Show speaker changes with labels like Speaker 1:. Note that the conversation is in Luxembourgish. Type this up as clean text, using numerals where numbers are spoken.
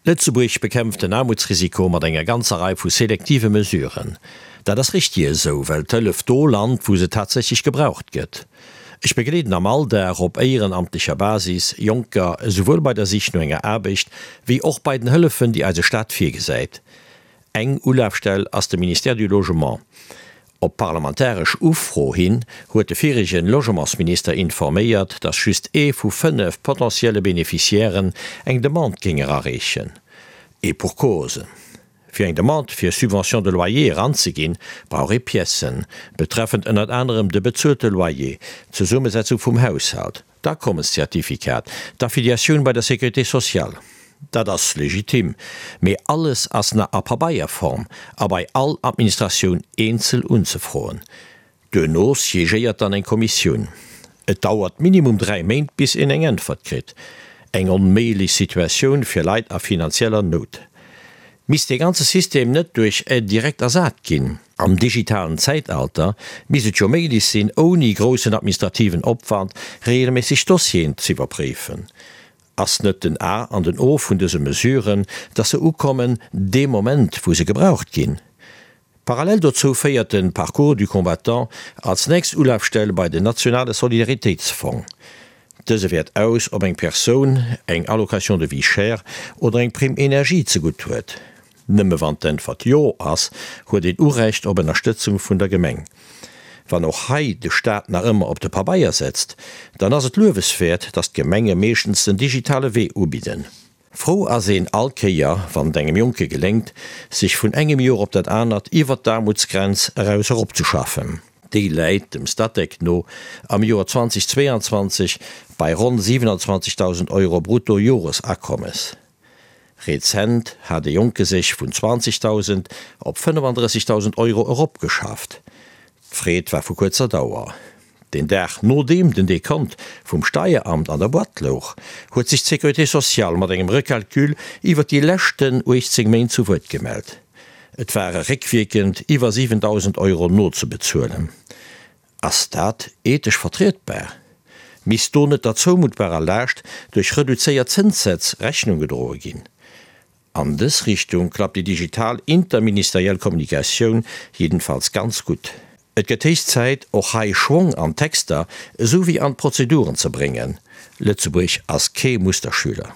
Speaker 1: Lëtzebuerg bekämpft den Aarmutsrisiko mat enger ganzer Rei vu selektive Mesuren. Dat ass richtig esou, well d'Hëllef do lant, wou se tatsächlech gebraucht gëtt. Ech begleeden am Alldag op éierenamtlecher Basis Jonker esouwuel bei der Sich no enger Aarbecht, wéi och bei den Hëllefen, déi eise Staat virgesäit. Eng Ulafstell ass de Ministère du Logement. Op parlamentaresch Ufro hin huet de viregen Logementsminister informéiert, datt just ee vu 5 potentielle Beneficiairen eng Demande géing erareechen. Et pour cause, Fir eng Demande fir Subvention de loyer eranzeginn, brauch ee Piècen, betreffend ënnert anerem de bezuelte Loyer, d'Zesummesetzung vum Haushalt, D'Akommenszertifikat, d'Affiliatioun bei der Sécurité sociale, dat ass legitim, mee alles ass nach a Pabeierform a bei all Administratioun eenzel unzefroen. Duerno siégéiert dann eng Kommissioun. Et dauert minimum 3 Méint bis een eng Äntwert kritt. Eng onméiglech Situatioun fir Leit a finanzieller Nout. Misst dee ganze System net duerch Aide directe ersat ginn? Am digitalen Zäitalter misst et jo méiglech sinn, ouni groussen administrativen Opwand regelméisseg Dossieren z'iwwerpréifen. Ass net den A an den O vun dëse Mesuren, dass se ukommen dee Moment, wou se gebraucht ginn? Parallel dozou féiert de Parcours du combattant als nächst Ulafstell bei den nationale Solidaritéitsfong. Dëse wäert aus, ob eng Persoun eng Allocation de vie chère oder eng Prime énergie zegutt huet. Nëmme wann d'Äntwert Jo ass, huet een Urecht op Ënnerstëtzung vun der Gemeng. Wann och hei de Staat nach ëmmer op de Pabeier setzt, dann ass et lueweswäert, datt d'Gemenge meeschtens den digitale Wee ubidden. Frou ass een all Kéier, wann et engem Jonke geléngt, sech vun engem Joer op dat anert iwwert d'Aarmutsgrenz eraus eropzeschaffen. Déi läit dem Statec no am Joer 2022 bei ronn 27.000 Euro Brutto-Joresakommes. Rezent hat e Jonke sech vun 20.000 op 35.000 Euro eropgeschafft. D'Freed war vu kuerzer Dauer. Den Dag nodeem den Dekont vum Steieramt an der Boîte louch, huet sech d'Sécurité sociale mat engem Recalcul iwwer déi leschten 18 Méint zu Wuert gemellt. Et ware réckwierkend iwwer 7.000 Euro nozebezuelen. Ass dat ethesch vertrietbar? Misst do net der zoumuttbarer Laascht duerch reduzéiert Zënssätz Rechnung gedroe ginn? An dës Richtung klappt déi digital interministeriell Kommunikatioun jiddenfalls ganz gutt. Et gëtt héich Zäit, och hei Schwong an d'Texter esou wéi an d'Prozeduren ze bréngen. Lëtzebuerg ass kee Musterschüler.